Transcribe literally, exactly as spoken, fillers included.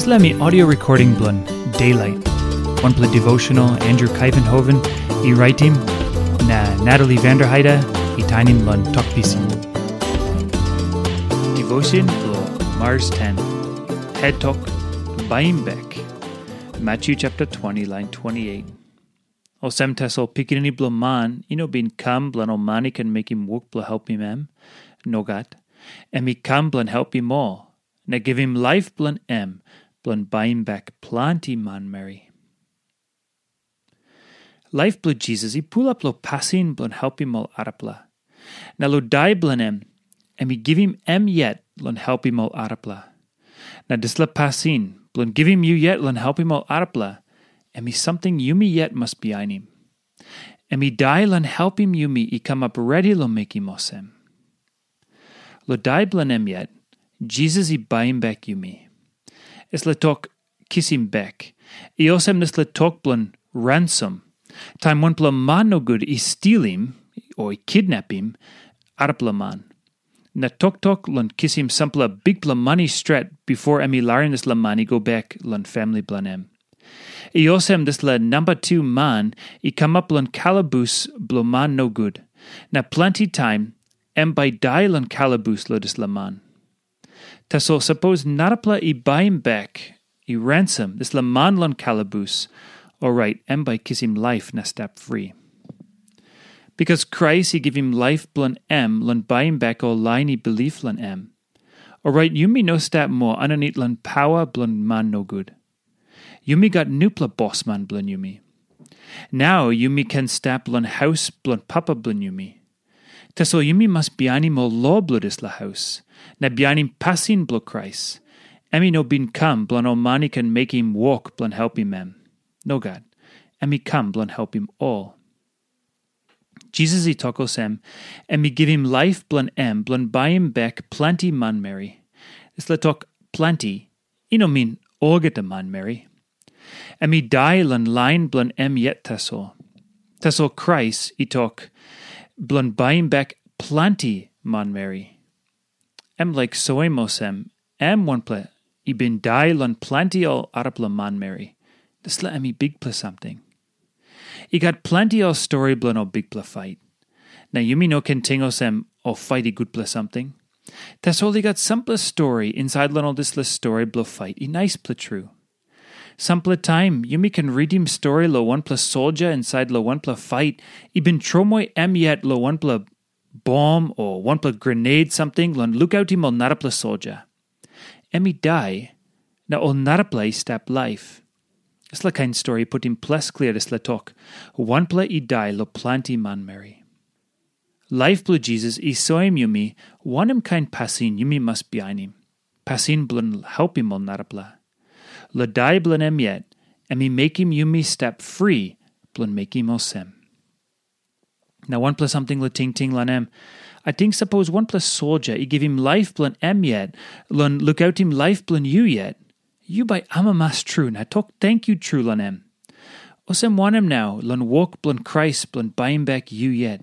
Dispela em i audio recording bilong Daylight, wanpela devotional Andrew Kaivenhoven i raitim, na Natalie Vanderheide i tainim long Tok Pisin. Devotion bilong Mars ten. Het tok, Baim Bek. Matthew chapter twenty, line twenty-eight. Olsem tasol Pikinini Bilong Man i no bin kam bilong ol man i ken mekim wok bilong helpim em. Nogat. Em i kam bilong helpim ol, na givim laip bilong em bilong baim bek planti manmeri. Laip bilong Jisas i pulap long pasin bilong helpim ol arapela. Na long dai bilong em, em i givim em yet long helpim ol arapela. Na dispela pasin bilong givim yu yet long helpim ol arapela, em i samting yumi yet mas bihainim. Em i dai long helpim yumi i kamap redi long mekim olsem. Long dai bilong em yet, Jisas i baim bek yumi. Dispela tok kisim bek i olsem dispela tok bilong ransom. Taim wanpela man nogut i stilim o i kidnapim arapela man, na toktok long kisim sampela bikpela mani stret bipo em i larim dispela man i go bek long famili bilong em. I olsem dispela namba tu man i kamap long kalabus bilong man nogut, na planti taim em bai i dai long kalabus long dispela man. Tasol sapos narapela i baim bek, i ransom dispela man long kalabus, orait em bai i kisim laip na stap fri. Bikas Krais i givim laip bilong em long baim bek ol lain i bilip long em, orait yumi no stap moa aninit long pawa bilong man nogut. Yumi gat nupela bosman bilong yumi. Nau yumi ken stap long haus bilong Papa bilong yumi. Tasol yumi mas bihainim ol lo bilong dispela haus, na bihainim pasin bilong Krais. Em i no bin kam bilong ol man i ken mekim wok bilong helpim em. Nogat. Em i kam bilong helpim ol. Jisas i tok olsem, em i givim laip bilong em bilong baim bek planti manmeri. Dispela tok planti i no min olgeta manmeri. Em i dai long lain bilong em yet tasol. Tasol Krais i tok, bilong baim bek planti manmeri. Em laik soim olsem, em wanpela i bin dai long planti ol arapela manmeri. Dispela em i bikpela samting. I gat planti ol stori bilong ol bikpela fait. Na yumi no ken ting olsem ol fait i gutpela samting. Tasol i gat sampela stori insait long ol dispela stori bilong fait i naispela tru. Sampela taim yumi ken ritim stori long wanpela soldia insait long wanpela fait i bin tromoi em yet long wanpela bom o wanpela grenade samting long lukautim ol narapela soldia. Em i dai, na ol narapela i stap laip. Dispela kain stori i putim ples klia dispela tok, wanpela i dai long planti manmeri. Laip bilong Jisas i soim yumi wanem kain pasin yumi mas bihainim, pasin bilong helpim ol narapela. Long dai bilong em yet, em i mekim yumi stap fri bilong mekim olsem. Na wanpela samting long tingting long em, ating sapos wanpela soldia i givim laip bilong em yet long lukautim laip bilong yu yet, yu bai amamas tru na tok tenkyu tru long em. Olsem wanem nau long wok bilong Krais bilong baim bek yu yet?